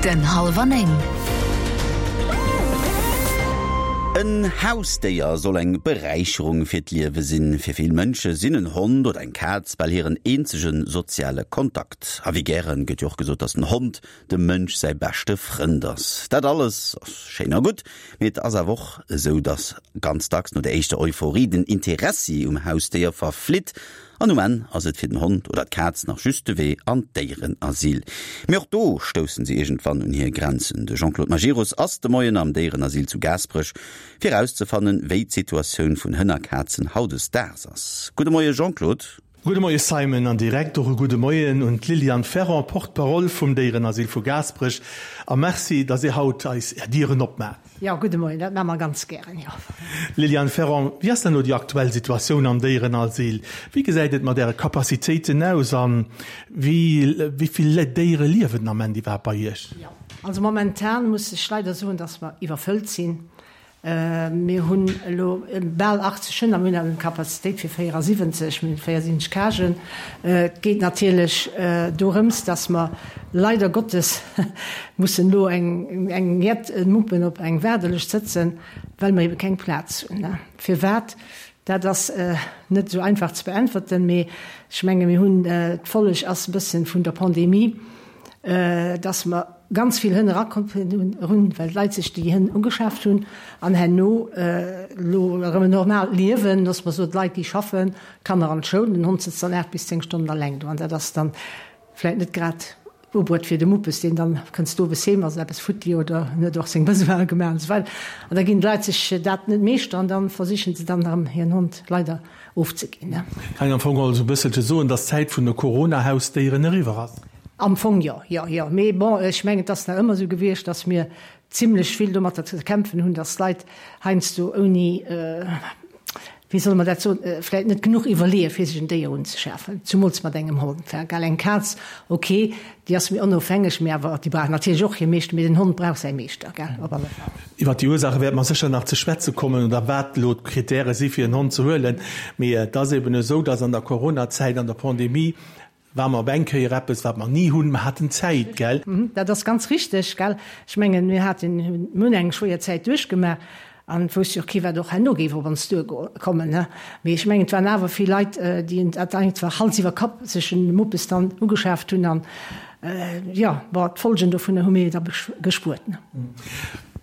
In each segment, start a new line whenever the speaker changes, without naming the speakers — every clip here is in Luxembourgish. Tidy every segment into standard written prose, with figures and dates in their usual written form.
Den Hallwer 9.
En Hausdéier soll eng Beräicherung fir d'Liewe sinn. Fir vill Mënsche sinn en Hond oder eng Kaz bal hiren eenzege soziale Kontakt. A wéi gäre gëtt jo och gesot, dass den Hond dem Mënsch säi beschte Frënd ass. Dat alles ass schéin a gutt, mee et ass awer och esou, dass ganz dacks no der éischter Euphorie den Interessi um Hausdéier verflitt An um Enn ass et fir den Hond oder d'Kaz nach just de Wee an d'Déierenasyl. Mee och do stoussen se iergendwann un hir Grenzen. De Jean-Claude Majerus ass de Moien am Déierenasyl zu Gaasperech, fir erauszefannen, wéi d'Situatioun vun Hënn a Kazen hautdesdaags ass. Gudde Moie Jean-Claude.
Gudde Moie Simon an direkt och e gudde Moien un d'Liliane Ferron, Porte-parole vum Déierenasyl vu Gaasperech. A Merci, dass Dir haut eis Är Dieren opmaacht.
Jo, gudde Moien, dat maache mer ganz gären, jo.
Liliane Ferron, wéi ass denn elo déi aktuell Situatioun am Déierenasyl? Wéi gesäit et mat Äre Capacitéiten aus a wéi vill Déiere liewen den Ament iwwerhaapt bei Iech?
Jo, also momentan muss ech leider soen, dass mer iwwerfëllt sinn. Mir hunn elo bal 80 Hënn a mir hunn awer eng Capacitéit fir 74, mir hunn 74 Cagen. Et geet natierlech dorëms, dass mer leider Gottes mussen elo eng jett Muppen op eng Waardelëscht sëtzen, well mer ebe keng Plaz hunn. Firwat? Dat ass net esou einfach ze beäntwerten, mee ech menge mir hunn, d'Folleg ass e bëssen vun der Pandemie, dass mer ganz vill Hënn erakomm hunn, well d'Leit sech déi Hënn ugeschaaft hunn an herno elo erëm en normaalt Liewen, loosse mer soen, d'Leit déi schaffen, d'Kanner an d'Schoul, den Hond sëtzt dann 8 bis 10 Stonnen alleng do an dat ass dann vläit net grad ubruet fir de Muppes, deen dann kënnst owes heem, ass eppes futti oder en huet och seng Besoine gemaach an esou weider. An da ginn d'Leit sech dat net meeschter an dann versichen se dann erëm hiren Hond leider ofzeginn.
Kann een am Fong also e bësselche soen, dass d'Zäit vun de Corona-Hausdéieren eriwwer ass?
Am Fong jo, jo, jo. Mee bon, ech mengen, et ass nach ëmmer esou gewiescht, dass mir zimlech vill domatter ze kämpfen hunn, dass d'Leit heiansdo ouni, wéi solle mer dat soen, vläicht net genuch iwwerleeë fir sech en Déier unzeschafen, zumools mat engem Hond. Gell, eng Kaz, ok, déi ass méi onofhängeg, mee awer déi brauch natierlech och hir Meeschter, mee den Hond brauch säi Meeschter, gell, op alle Fall.
Iwwer déi Ursaache wäerte mer sécher nach ze schwätze kommen oder wat elo d'Kritäre si fir en Hond ze huelen. Mee et ass eben esou, dass an der Coronazäit, an der Pandemie, War mer op eng Kéier eppes, wat mer ni hunn, mer haten Zäit, gell?
Dat ass ganz richteg, gell? Ech mengen, mir haten, mir hunn eng schwéier Zäit duerchgemaach an et wousst jo och kee wat och herno géif op ons duerkommen, ne? Mee ech mengen, et waren awer vill Leit, déi dat einfach Hals iwwer Kapp sech en Muppes dann ugeschaaft hunn an, jo, bon, d'Folgen dovunner hu mir da gespuert, ne?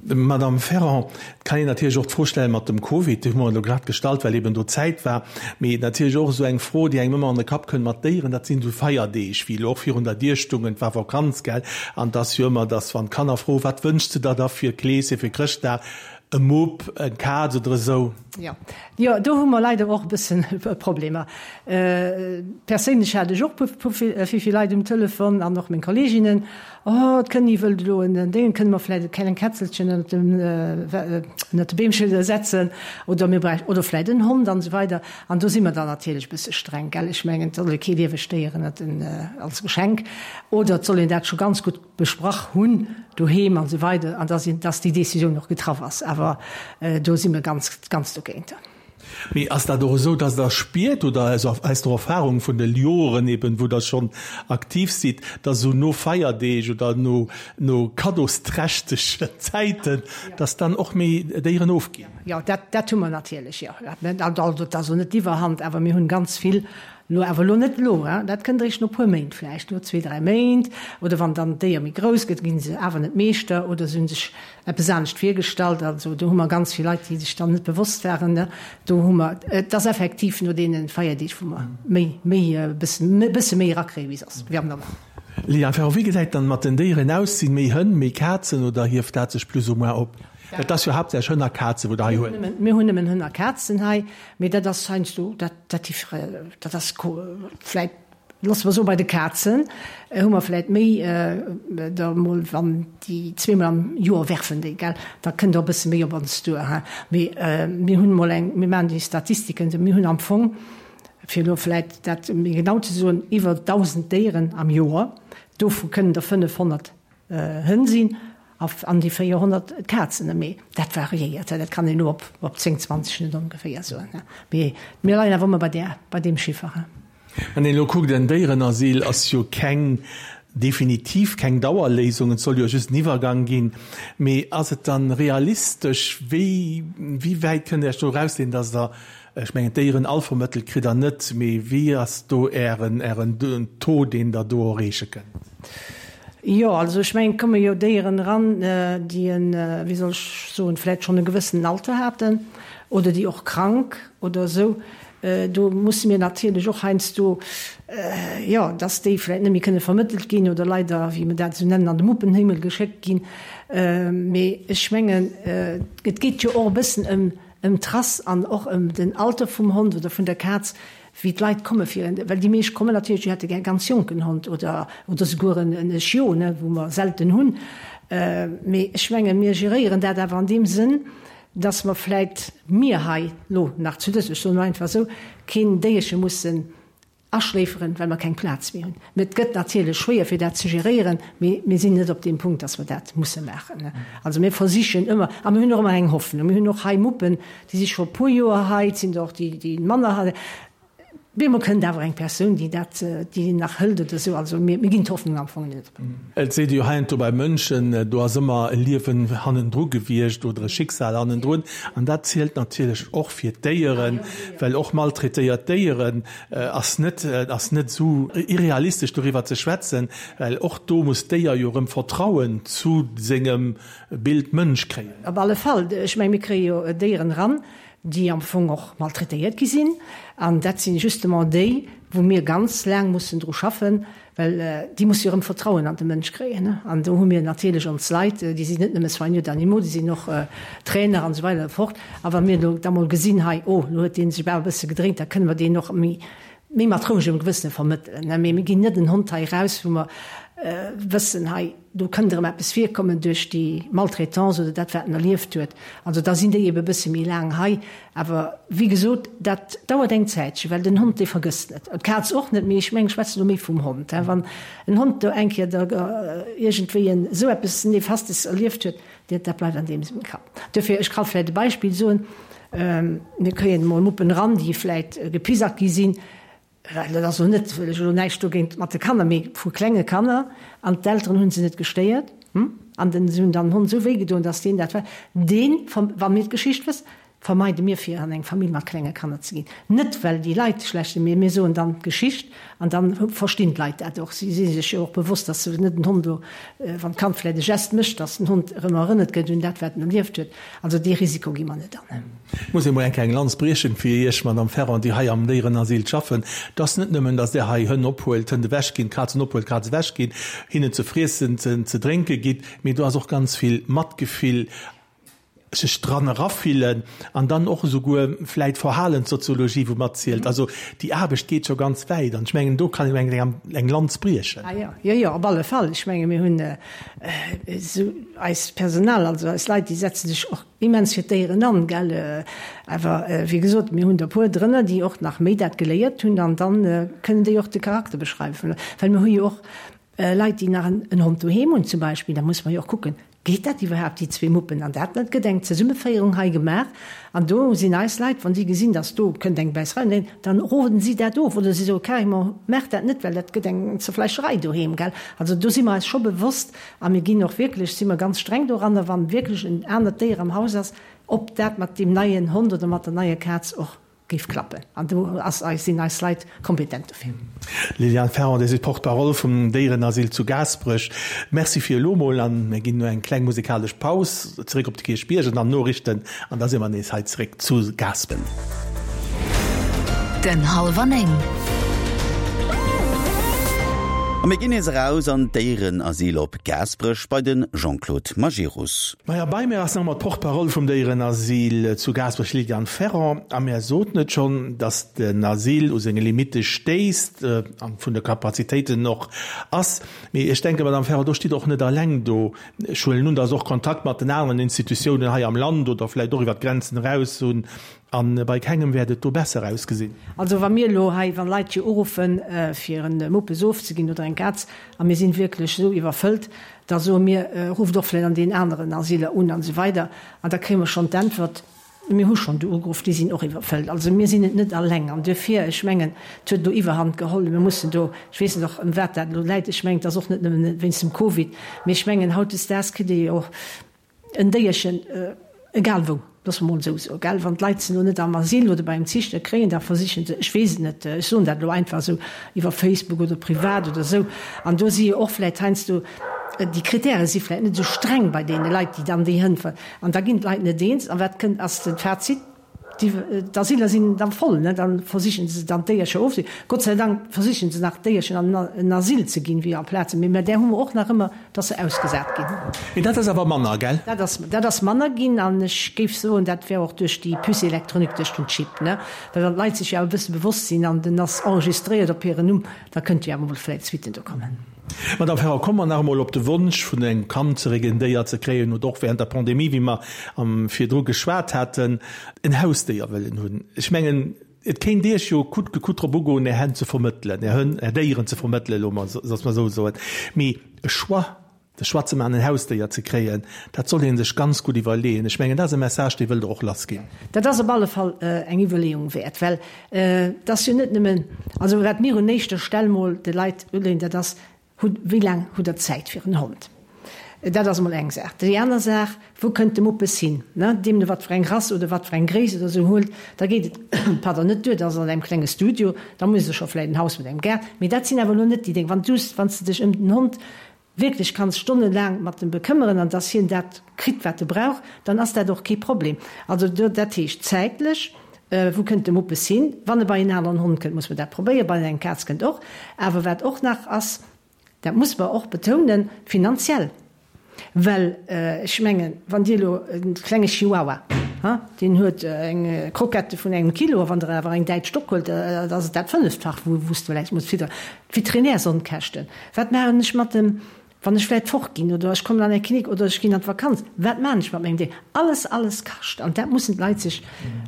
Madame Ferrand, et kann een natierlech och d'Fro stellen mat dem Covid, déi hu mer elo grad gestallt, well eben do Zäit war, mee natierlech och esou eng Fro, déi engem ëmmer an de Kapp kënnt mat Déieren, dat sinn esou Feierdeeg, wéi elo och virun der Dier stungen, et war Vakanz, gell, an et ass jo ëmmer, dass wann d'Kanner froen, wat wënschs de der da fir Kleeschen, fir Chrëschtdag, e Mupp, eng Kaz oder esou.
Jo, jo, do hu mer leider och e bëssen Problemer. Perséinlech hat ech och vill, vill Leit um Telefon an och meng Kolleeginnen, Oh, d'Kënni wëllt elo en Déngen, kënne mer vläit e kleng Kätzelchen ënnert dem, ënnert de Beemche setzen oder mir bräichten, oder vläit en Hond an esou weider. An do si mer dann natierlech e bësse streng, gell. Ech mengen, et soll ee kee liewegt Déier ënnert den, als Geschenk, oder et soll een dat scho ganz gutt besprach hunn doheem an esou weider an dass een, dass déi Décisioun och getraff ass. Awer do si mer ganz, ganz dogéint.
Mee ass dat och esou, dass Der spiert, oder aus der Erfahrung vun de Joren eben, wou Der schonn aktiv sidd, dass esou no Feierdeeg oder no no kaddosträchtegen Zäiten, dass dann och méi Déieren ofginn?
Jo, dat dat hu mer natierlech, jo. Also dat ass elo net d'Iwwerhand, awer mir hunn ganz vill elo, awer elo net elo, hein, dat kënnt eréischt no e puer Méint vläicht, no zwee, dräi Méint, oder wann dann d'Déier méi grouss gëtt, gi se awer net Meeschter oder se hu sech eppes anescht virgestallt. Also do hu mer ganz vill Leit, déi sech dann net bewosst waren. Do hu mer, et ass effektiv no deene Feierdeeg, wou mer méi, méi e bëssen, e bësse méi erakréie wéi soss, wéi am Normalen.
Liliane Ferron, Wéi gesäit dann mat den Déieren aus? Sinn méi Hënn, méi Kazen oder hieft dat sech plus ou moins op? Dat ass jo haaptsächlech Hënn a Kazen, wou Der hei huet.
Mir hunn nëmmen Hënn a Kazen hei, mee dat ass heiansdo, dat, dat, dat ass vläit Loosse mer soen, bei de Kazen hu mer vläit méi der emol, wann déi zweemol am Joer werfen déi, gell, da kënnt och e bësse méi op ons duer, hein. Mee mir hunn emol eng, mir maachen déi Statistiken, mir hunn am Fong, fir elo vläit dat méi genau ze soen, iwwer 1.000 Déieren am Joer, dovu kënnen der 500 Hënn sinn an déi 400 Kazen. Mee dat variéiert, dat kann een elo op 10, 20 net ongeféier soen. Mee mir leien awer ëmmer bei där, bei deem Chiffer.
Wann een elo kuckt, en Déierenasyl ass jo keng. Definitiv keng Dauerléisung, et soll jo just en Iwwergang ginn. Mee ass et dann realistesch? Wéi wéi wäit kënnt Der Iech do erausleeën, dass Der, ech mengen d'Déieren all vermëttelt kritt Der net, mee wéi ass do Ären Ären Taux, deen Der do erreeche kënnt?
Jo, also ech mengen, et komme jo Déieren eran, déi en, wéi soll ech soen, vläicht schonn e gewëssenen Alter haten oder déi och krank oder esou. Do musse mir natierlech och heiansdo, jo, dass déi vläicht net méi kënne vermëttelt ginn oder leider, wéi mir dat esou nennen, an de Muppenhimmel geschéckt ginn. Mee ech mengen, et geet jo och e bëssen ëm ëm d'Rass an och ëm den Alter vum Hond oder vun der Kaz, wéi d'Leit komme fir en, well déi meescht kommen natierlech, déi hätte gär e ganz jonken Hond oder oder souguer en e Chiot, ne, wou mer selten hunn. Mee ech mengen, mir geréieren dat awer an deem Sënn, dass mer vläit, mir hei lo nach zu dës, ech soen elo einfach esou, keen Déierche mussen aschléiferen, well mer keng Plaz méi hunn. Mä et gëtt natierlech schwéier fir dat ze geréieren, mee mir sinn net op deem Punkt, dass mer dat musse maachen. Also mir versichen ëmmer, a mir hunn och ëmmer eng Hoffnung, mir hunn och hei Muppen, déi si scho e puer Joer hei, et sinn der och déi, déi manner hei. Bemol kënnt awer eng Persoun, déi dat, déi nach hëlt oder esou. Also mir, mir ginn d'Hoffnung am Fong net op.
Et seet ee jo heiansdo bei Mënschen, do ass ëmmer e Liewen hannendru gewiescht oder e Schicksal hannendrun. An dat zielt natierlech och fir d'Déieren, well och maltraitéiert Déieren ass net, ass net esou irrealistesch doriwwer ze schwätzen, well och do muss d'Déier jo erëm Vertrauen zu sengem Bild Mënsch kréien.
Op alle Fall. Ech menge mir kréie jo Déieren eran, déi am Fong och maltraitéiert gi sinn, an dat si justement déi, wou mir ganz laang mussen dru schaffen, well déi musse jo erëm Vertrauen an de Mënsch kréien. An do hu mir natierlech ons Leit, déi sinn net nëmme Soigneurs d'animaux, déi sinn och Trainer an esou weider an esou fort. A wa mir elo da mol gesinn, hei, oh, elo huet dee sech awer e bësse gedréint, da kënne mer deen och méi, méi mat rouegem Gewësse vermëttelen. Mee mir ginn net en Hond hei eraus, wou mer wëssen, hei, do kënnt erëm eppes virkommen duerch déi Maltraitance oder dat, wat en erlieft huet. Also da sinn déi ebe e bësse méi laang hei. Awer wéi gesot, dat dauert eng Zäitche, well den Hond, dee vergësst net. D'Kaz och net, mee ech mengen, ech schwätzen elo méi vum Hond. Wann en Hond do eng Kéier da iergendwéi en esou eppes Nefastes erlieft huet, dat bleift an deem sengem Kapp. Duerfir, ech ka vläicht e Beispill soen, Mir kréien emol Muppen eran, déi vläicht gepisackt gi sinn. Well dat ass elo net, wëll ech elo näischt dogéint mat de Kanner, mee vu klenge Kanner, an d'Elteren hu se net gestéiert, an den, se hunn dann den Hond esou wéi gedoen, datt deen dat war, deen, wa mir d'Geschicht wëssen, vermeide mir fir an eng Famill mat klenge Kanner ze ginn. Net well déi Leit schlecht sinn, mee mir soen dann d'Geschicht an dann verstinn d'Leit dat och. Si si sech jo och bewosst, datt se net den Hond do, wann d'Kand vläicht e Gest mécht, datt den Hond erëm erënnert gëtt un dat wat en erlieft huet. Also dee Risiko gi mer net an.
Ech muss emol eng kleng Lanz briechen fir Iech, Madame Ferrand, déi hei am Déierenasyl schaffen. Et ass net nëmmen, datt Der hei Hënn ophuelt, Hënn ewech ginn, Kazen ophuelt, Kazen ewech ginn, hinnen ze friessen, ze drénke gitt, mee do ass och ganz vill Matgefill, sech dran erafillen an dann och esouguer vläit Verhalenssoziologie, wou matzielt. Also déi Aarbecht geet scho ganz wäit an ech mengen, do kann een eng eng Lanz briechen.
Ah jo, jo, jo, op alle Fall. Ech menge mir hunn esou eist Personal, also eis Leit, déi setze sech och immens fir d'Déieren an, gell. Awer wéi gesot, mir hunn der e puer drënner, déi och nach méi dat geléiert hunn an dann kënnen déi och de Charakter beschreiwen. Well mir hu jo och Leit, déi nach en Hond doheem hunn zum Beispill, da muss mer jo och kucken, geet dat iwwerhaapt, déi zwee Muppen an dat? Et gëtt eng Zesummeféierung hei gemaach an do sinn eis Leit, wa si gesinn, datt do kënnt eng Bäisserei, dann roden si dat of oder si soe carrément, maacht dat net, well dat gëtt eng Zerfleischerei doheem, gell. Also do si mer eis scho bewosst a mir ginn och wierklech, si mer ganz streng doranner, wa wierklech en anert Déier am Haus ass, ob dat mat deem neien Hond oder mat der neier Kaz och géif klappen. An do ass eis, sinn eis Leit kompetent dofir.
Liliane Ferrand, Dir sidd Porte-parole vum Déierenasyl zu Gaasperech. Merci fir elo mol an mir ginn no eng kleng musikalesch Paus zeréck op de Kierchbierg an dann Noriichten an da si mer nees hei zeréck zu Gaaspen.
Den Hallwer 9.
A mir ginn nees eraus an d'Déierenasyl op Gaasperech bei de Jean-Claude Majerus.
Maja, bei mir ass nach emmer d'Porte-parole vum Déierenasyl zu Gaasperech, Liliane Ferrand. A mär soten et schonn, datt den Asyl u senge Limitte stéisst an vun de Kapazitéiten och ass. Mee ech denken, Madame Ferrand, do stitt Der och net alleng do. Ech huelen un, datt Der och Kontakt mat den aneren Institutiounen hei am Land oder vläicht och iwwer d'Grenzen eraus hunn. A bei kengem wäert et do besser ausgesinn.
Also wa mir elo hei, wa Leit hier uruffen, fir e Muppes ofzeginn oder eng Kaz, a mir sinn wierklech esou iwwerfëllt, da soe mir, rufft och vläicht an deenen aneren Asyler un an esou weider. An da kréie mer schonn d'Äntwert. Mir hu schonn do ugeruff, déi sinn och iwwerfëllt. Also mir sinn et net alleng. An duerfir, ech mengen, et huet elo Iwwerhand geholl. Mir mussen do, ech weess net och ëm wat dat elo läit, ech mengen, et ass och net nëmmen wéinst dem Covid, mee ech mengen, hautdesdaags kritt ee jo och en Déierchen egal wou, loosse mer emol esou soen, gell, wann d'Leit se elo net am Asyl oder bei engem Ziichter kréien, da versichen se, ech weess et net, ech soen dat elo einfach esou, iwwer Facebook oder privat oder esou. An do si jo och vläicht heiansdo, déi Kritäre si vläicht net esou streng bei deene Leit, déi dann déi Hënn. An da ginn d'Leit net eens. An wat kënnt, ass de Fazit, D'Asyler sinn da voll, ne? Da versichen se dann d'Déiercher ofze. Gott sei Dank versichen se nach d'Déierchen an en Asyl ze ginn, wéi amplaz. Mee mä där hu mer och nach ëmmer, dass se ausgesat ginn.
Mee dat ass awer manner, gell?
Dat ass, dat ass manner ginn. An ech géif soen, dat wär och duerch déi Puce électronique, duerch den Chip, ne? Well wann d'Leit sech jo awer e bësse bewosst sinn an den ass enregistréiert op hiren Numm, da kënnte jo awer mol vläicht Suitten do kommen.
Madame Ferrand, komme mer nach emol op de Wonsch vun engem Kand zeréck, en Déier ze kréien oder och während der Pandemie, wéi mer am virdru geschwat haten, en Hausdéier wëllen hunn. Ech mengen, et kéint Iech jo coûte que coûte drop ugoen, Är Hänn ze vermëttelen, Är Hënn, Är Déieren ze vermëttelen, elo mol, soss mer esou soen. Mee e Choix, de Choix ze maachen, en Hausdéier ze kréien, dat soll ee sech ganz gutt iwwerleeën. Ech mengen, dat ass e Message, dee wëllt Der och lassginn.
Dat ass op alle Fall eng Iwwerleeung wäert, well et ass jo net nëmmen, also wat mir un éischter Stell mol de Leit uleeën, dat ass, Hutt, wéi laang hutt Der Zäit fir en Hond? Dat ass emol eng Saach. Déi aner Saach, Wou kënnt de Muppes hin? Ne, deemno wat fir eng Rass oder wat fir eng Gréisst oder esou huelt, da geet et, pardon, net duer, dass an engem klenge Studio, da muss e scho vläicht en Haus mat engem Gaart, mee dat sinn awer elo net déi Déng. Wann du, wann s de dech ëm den Hond wierklech kanns stonnelaang mat em bekëmmeren an dass hien dat kritt, wat e brauch, dann ass dat och kee Problem. Also do, dat heescht zäitlech, wou kënnt de Muppes hin? Wann e bei en aneren Hond kënnt, muss mer dat probéieren, bei eng Kaz kënnt och. Awer wat och nach ass, dat muss mer och betounen, finanziell. Well ech mengen, wann Dir elo e klenge Chihuahua, ha, deen huet eng Croquette vun engem Kilo, a wann Der awer eng däitsch Dogg huelt, da ass et dat Fënneftfach, wou s de vläicht muss fidderen. D'Veterinärsonkäschten, wat maachen ech mat dem, wann ech vläicht fortginn oder ech kommen an eng Klinik oder ech ginn an d'Vakanz, wat maachen ech mat mengem Déier? Alles, alles kascht an dat mussen d'Leit sech,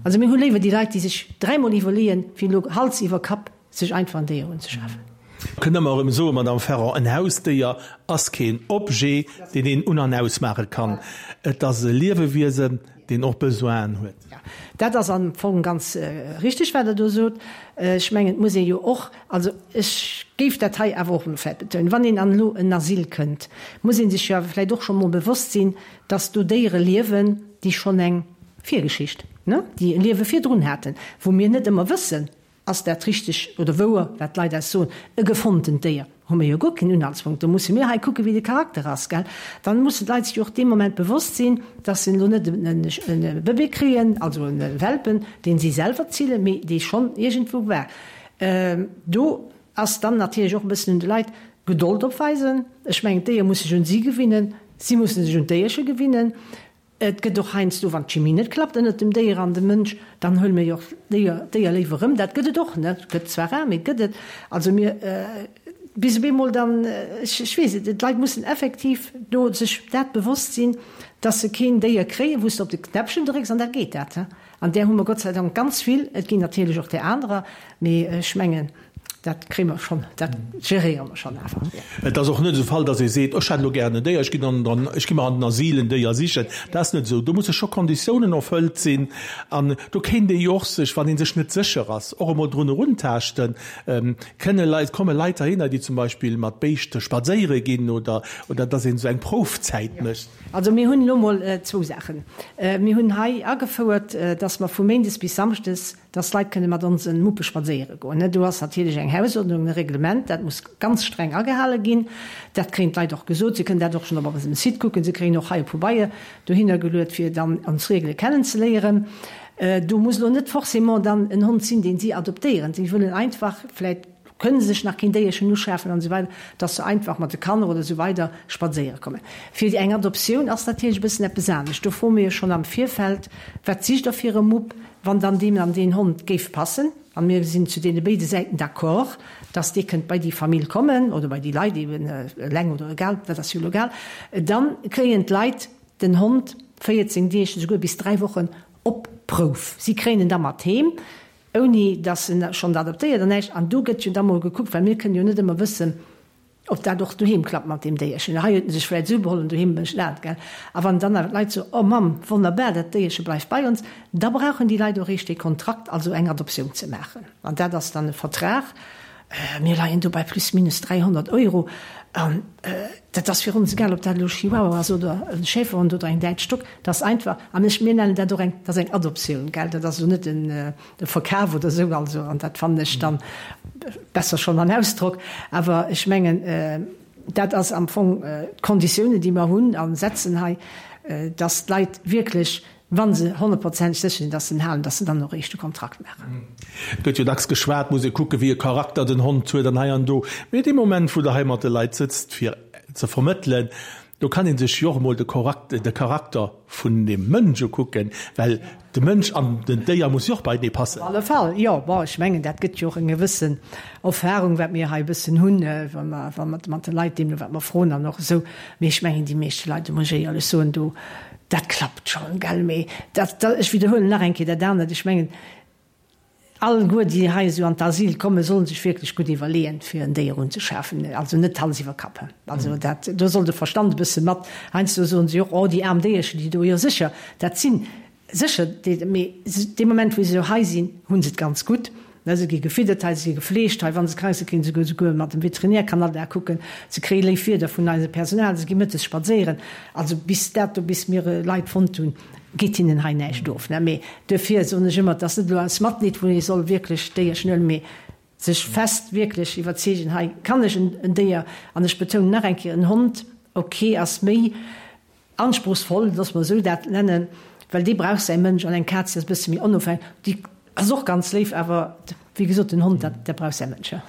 also mir hu léiwer déi Leit, déi sech dräimol iwwerleeën, wéi elo Hals iwwer Kapp sech einfach en Déier unzeschafen.
Kënne mer erëm soen, Madame Ferrand, en Hausdéier ass keen Objet, deen een un an ausmaache kann. Et ass e Liewewiesen, deen och Besoinen huet.
Jo, dat ass am Fong ganz richtig, wat Der do sot. Ech mengen, et muss ee jo och, also ech géif dat hei awer och elo vläicht betounen, wann een an elo en Asyl kënnt, muss ee sech jo awer vläicht och scho mol bewosst sinn, dass do Déiere liewen, déi schonn eng Virgeschicht, ne, déi e Liewe virdrun haten, wou mir net ëmmer wëssen, Ass dat richteg oder wouer, wat d'Leit eis soen? E gefonntent Déier? Hu mir jo guer keen Unhaltspunkt. Do musse mir hei kucken, wéi de Charakter ass, gell? Dann mussen d'Leit sech jo och dee Moment bewosst sinn, dass se elo net e Bëbee kréien, also e Welpen, deen si selwer zillen, mee dee schonn iergendwou war. Do ass dann natierlech och e bëssen un de Leit, Gedold opweisen. Ech mengen, d'Déier muss sech un si gewinnen, si musse sech un d'Déierche gewinnen. Et gëtt och heiansdo, wann d'Chimie net klappt ënnert dem Déier an dem Mënsch, dann huele mir jo och d'Déier, d'Déier léiwer erëm. Dat gëtt et och, ne? Gëtt zwar rar, mee et gëtt et. Also mir, bis op eemol dann, ech, ech weess et, d'Leit mussen effektiv do sech dat bewosst sinn, dass se keen Déier kréien, wou s de op de Knäppchen drécks an da geet dat, he. An där hu mer Gott sei Dank ganz vill. Et ginn natierlech och där anerer, mee ech mengen, dat kréie mer schonn, dat geréiere mer schonn awer.
Et ass och net esou Fall, datt ee seet, ech hätt elo gären en Déier, ech ginn an den, ech gi mer an den Asyl en Déier sichen. Dat ass net esou. Do musse scho Konditiounen erfëllt sinn. An do kéint ee jo och sech, wann ee sech net sécher ass, och emol drun eruntaaschten. Kënne Leit, komme Leit heihinner, déi zum Beispill mat Béischte spadséiere ginn oder, oder datt een esou eng Proufzäit mécht?
Also mir hunn elo mol zwou Saachen. Mir hunn hei agefouert, dass mer vu méindes bis samschdes, dass d'Leit kënne mat onse Muppe spadséiere goen. Do ass natierlech eng Hausordnung, e Reglement, dat muss ganz streng agehale ginn. Dat kréien d'Leit och gesot. Se kënnen dat och schonn op eisem Site kucken. Se kréien och hei e Pobeier dohinner geluet, fir dann ons Regele kennenzeléieren. Do muss elo net forcément dann en Hond sinn, deen si adoptéieren. Si wëllen einfach vläicht kënne sech nach keen Déierchen uschafen an esou weider, dass se einfach mat de Kanner oder esou weider spadséiere kommen. Fir eng Adoptioun ass natierlech e bëssen eppes anescht. Do froe mir jo schonn am Virfeld, Wat sicht Der fir e Mupp, wann dann deem an deen Hond géif passen? A mir sinn zu deene béide Säiten d'accord, dass dee kënnt bei déi Famill kommen oder bei déi Leit eben, eleng oder egal, dat ass jo elo egal. Dann kréien d'Leit den Hond 14 Deeg, esouguer bis 3 Wochen op Prouf. Si kréien en da mat heem. Ouni dass en schonn adoptéiert an näischt. An do gëtt jo da mol gekuckt, well mir kënnen jo net ëmmer wëssen. Ob dat och doheem klappt mat deem Déierchen. Hei huet en sech vläit esou beholl an doheem mécht dat, gell. A wann dann awer d'Leit soen, Oh Mamm, wonnerbar, dat Déierche bleift bei ons, da brauchen déi Leit och eréischt dee Kontrakt, also eng Adoptioun ze maachen. An dat ass dann e Vertrag, mir leien do bei plus minus 300 Euro. An dat ass fir ons egal, ob dat elo e Chihuahua ass oder e Schäferhond oder eng däitsch Dogg, dat ass einfach, an ech, mir nennen dat och eng, dat ass eng Adoptioun, gell, dat ass elo net en, de Verkaf oder esou, also, an dat fannen ech dann besser schonn an Ausdrock, awer ech mengen, dat ass am Fong d'Konditiounen, déi mer hunn a setzen hei, dass d'Leit wierklech, wa se honnertprozenteg sécher sinn, dass se en halen, dass se dann och eréischt de Kontrakt maachen.
Et gëtt jo dacks geschwat, muss ee kucken, wéi e Charakter den Hond huet an hei an do. Mee dee Moment, wou Der hei mat de Leit sëtzt, fir ze vermëttelen, do kann ee sech jo och emol de Charakter vun dem Mënsch ukucken, well de Mënsch an den Déier muss jo och beienee passen.
Op alle Fall, jo. Bon, ech mengen, dat gëtt jo och eng gewëssen Erfahrung, wat mir hei e bëssen hunn, wa mer, wa mer mat de Leit deemno wat mer froen an och esou. Mee ech mengen, déi meeschte Leit, do muss ech éierlech soen, do, dat klappt schonn, gell. Mee dat, ech widderhuelen nach eng Kéier dat anert, ech mengen, Alleguer, déi hei esou an d'Asyl kommen, sollen sech wierklech gutt iwwerleeën, fir en Déier unzeschafen. Also net Hals iwwer Kapp. Also dat, do soll de Verstand e bësse mat. Heiansdo soen se jo och, Oh, déi aarm Déierchen, déi do. Jo sécher, dat sinn sécher déi, mee dee Moment, wou se elo hei sinn, hu se et ganz gutt. Se gi gefiddert hei, se gi gefleegt hei. Wa se krank sinn, kréie se esouguer mat dem Veterinär kann all Dag kucken. Se kréie léif Wierder vun eisem Personal, se gi mëttes spadséieren. Also bis dat do, bis mir Leit fonnt hunn, geet hinnen hei näischt of. Mee duerfir soen ech ëmmer, et ass net elo aus Matleed, wou ee soll wierklech d'Déierchen huelen, mee sech fest wierklech iwwerzeegen, hei kann ech en Déier, an ech betounen nach eng Kéier, en Hond, ok, ass méi anspruchsvoll, loosse mer esou dat nennen, well dee brauch säi Mënsch, an eng Kaz, déi ass e bësse méi onofhängeg, déi ass och ganz léif, awer wéi gesot, den Hond, dat, dat brauch säi Mënsch, jo.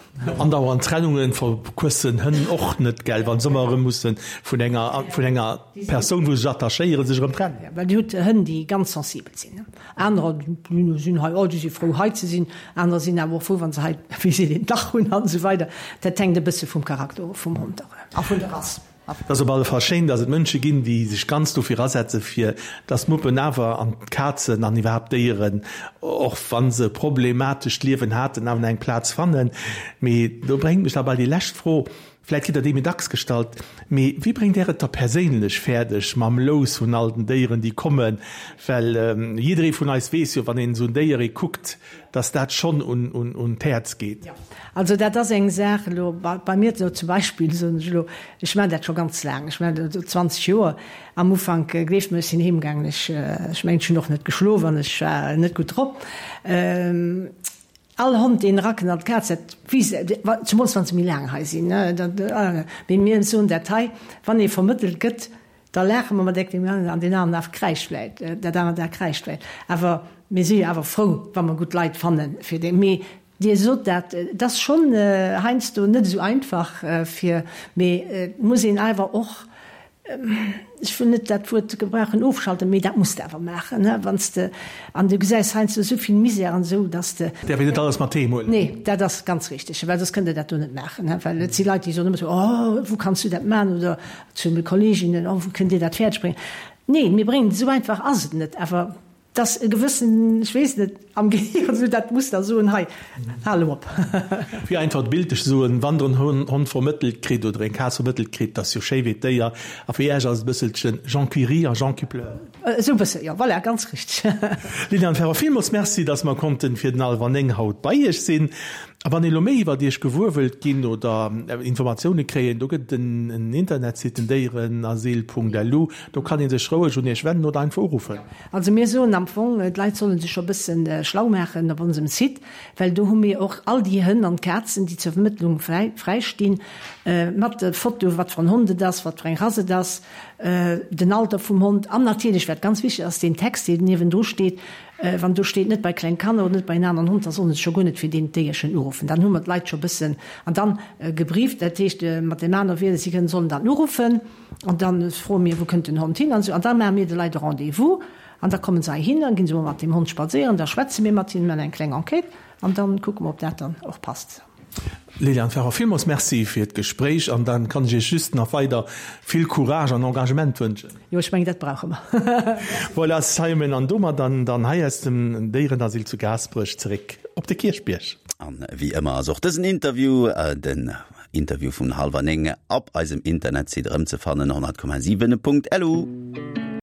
Andauernd Trennungen verquëssen Hënn och net, gell, wa se ëmmer erëm musse vun enger, vun enger Persoun, wou se sech attachéieren, sech erëm trennen.
Jo, well Dir hutt Hënn, déi ganz sensibel sinn. Anerer, déi sinn hei, oh, déi si frou, hei ze sinn. Anerer sinn awer och frou, wa se hei, wéi seet een, Dach hunn an esou weider. Dat hänkt e bësse vum Charakter of vum Hond a vun der Rass.
Et ass op alle Fall schéin, dass et Mënsche ginn, déi sech ganz dofir asetzen, fir dass d'Muppen awer an d'Kazen an iwwerhaapt d'Déieren, och wa se e problematescht Liewen haten, awer nach eng Plaz fannen. Mee do bréngt mech da bei déi lescht Fro, vläit kritt Der déi méi dacks gestallt, mee wéi bréngt Der et da perséinlech fäerdeg mam Lous vun all den Déieren, déi kommen? Well jidderee vun eis weess jo, wann een esou en Déier ee kuckt, dass dat schonn un d'Häerz geet.
Jo, also dat ass eng Saach elo bei mir elo zum Beispill, soen ech elo, ech maachen dat scho ganz laang, ech maachen dat elo 20 Joer. Am Ufank, gleeft mer, ech sinn heem gaangen, ech, ech mengen, ech hunn och net geschlof an ech war net gutt drop. All Hond, deen erakënnt an d'Kaz, dat weess, zemools wa se méi laang hei sinn, dat, mee mir soen dat hei, wann ee vermëttelt gëtt, Da laache mer mat deem aneren an deen aneren Af kräischt vläit, dat anert A kräischt vläit. Awer mir si jo awer frou, wa mer gutt Leit fanne fir déi. Mee Dir sot dat, et ass schonn heiansdo net esou einfach fir, mee et muss een awer och, ech wëll net dat Wuert gebrauchen, ofschalten, mee dat muss de awer maachen, wann s de, an du gesäis heiansdo esou vill Misär an esou, dass de.
Däerf een net alles mat heem huelen.
Nee, dat ass ganz richteg, well soss kënnt Der dat do net maachen, well et si Leit, déi soen ëmmer esou, Oh, wou kanns du dat maachen? Oder Zu de Kolleginnen, Oh, wou kënnt Dir dat fäerdeg bréngen? Neen, mir bréngen et, esou einfach ass et net, awer et ass e gewëssen, ech weess net, am Gehir esou dat Muster soen, hei, hal elo op.
Fir einfach bildlech ze soen, Wann Der en Hond vermëttelt kritt oder eng Kaz vermëttelt kritt, dat ass jo schéi wéi d'Déier, a fir Iech ass et e bësselchen Jean qui rit a Jean qui pleure.
Esou e bësse, jo, voilà, ganz richteg.
Liliane Ferber, villmools Merci, dass mer konnten fir den Hallwer 9 haut bei Iech sinn. A wann ee lo méi iwwert Iech gewuer wëllt ginn oder Informatioune kréien, do gëtt et en Internetsite, den déierenasyl.lu, do kann ee sech roueg un Iech wennen oder einfach uruffen.
Also mir soen am Fong, d'Leit solle sech scho bësse schlau maachen op onsem Site, well do hu mir och all déi Hënn an Kazen, déi zur Vermëttlung fräi stinn, mat de Foto, wat fir en Hond et ass, wat fir eng Rass et ass, den Alter vum Hond an natierlech, wat ganz wichteg ass, deen Text, deen niewendru steet, Wann do steet, net bei kleng Kanner oder net bei en aneren Hond, da sollen se scho guer net fir deen Déierchen uruffen. Dann hu mer d'Leit scho bëssen an dann gebrieft. Dat heescht, mat deem anere Wierder, si kënnen, sollen dann uruffen an da froe mir, wou kënnt den Hond hin an esou. An da maache mir de Leit e Rendez-vous an da komme se heihin, dann gi se mol mat deem Hond spadséieren, da schwätze mir mat hinnen, maachen eng kleng Enquête an dann kucke mer, ob dat dann och passt.
Liliane Ferber, villmools Merci fir d'Gespréich an dann kann ech Iech just nach weider vill Courage an Engagement wënschen.
Jo, ech mengen, dat brauche mer.
Voilà, Simon, an domat dann dann hei aus dem Déierenasyl zu Gaasperech zeréck op de Kierchbierg.
An wéi ëmmer ass och dësen Interview den. Interview vun hallwer 9 op eisem Internetsite erëmzefannen, 100,7.lu.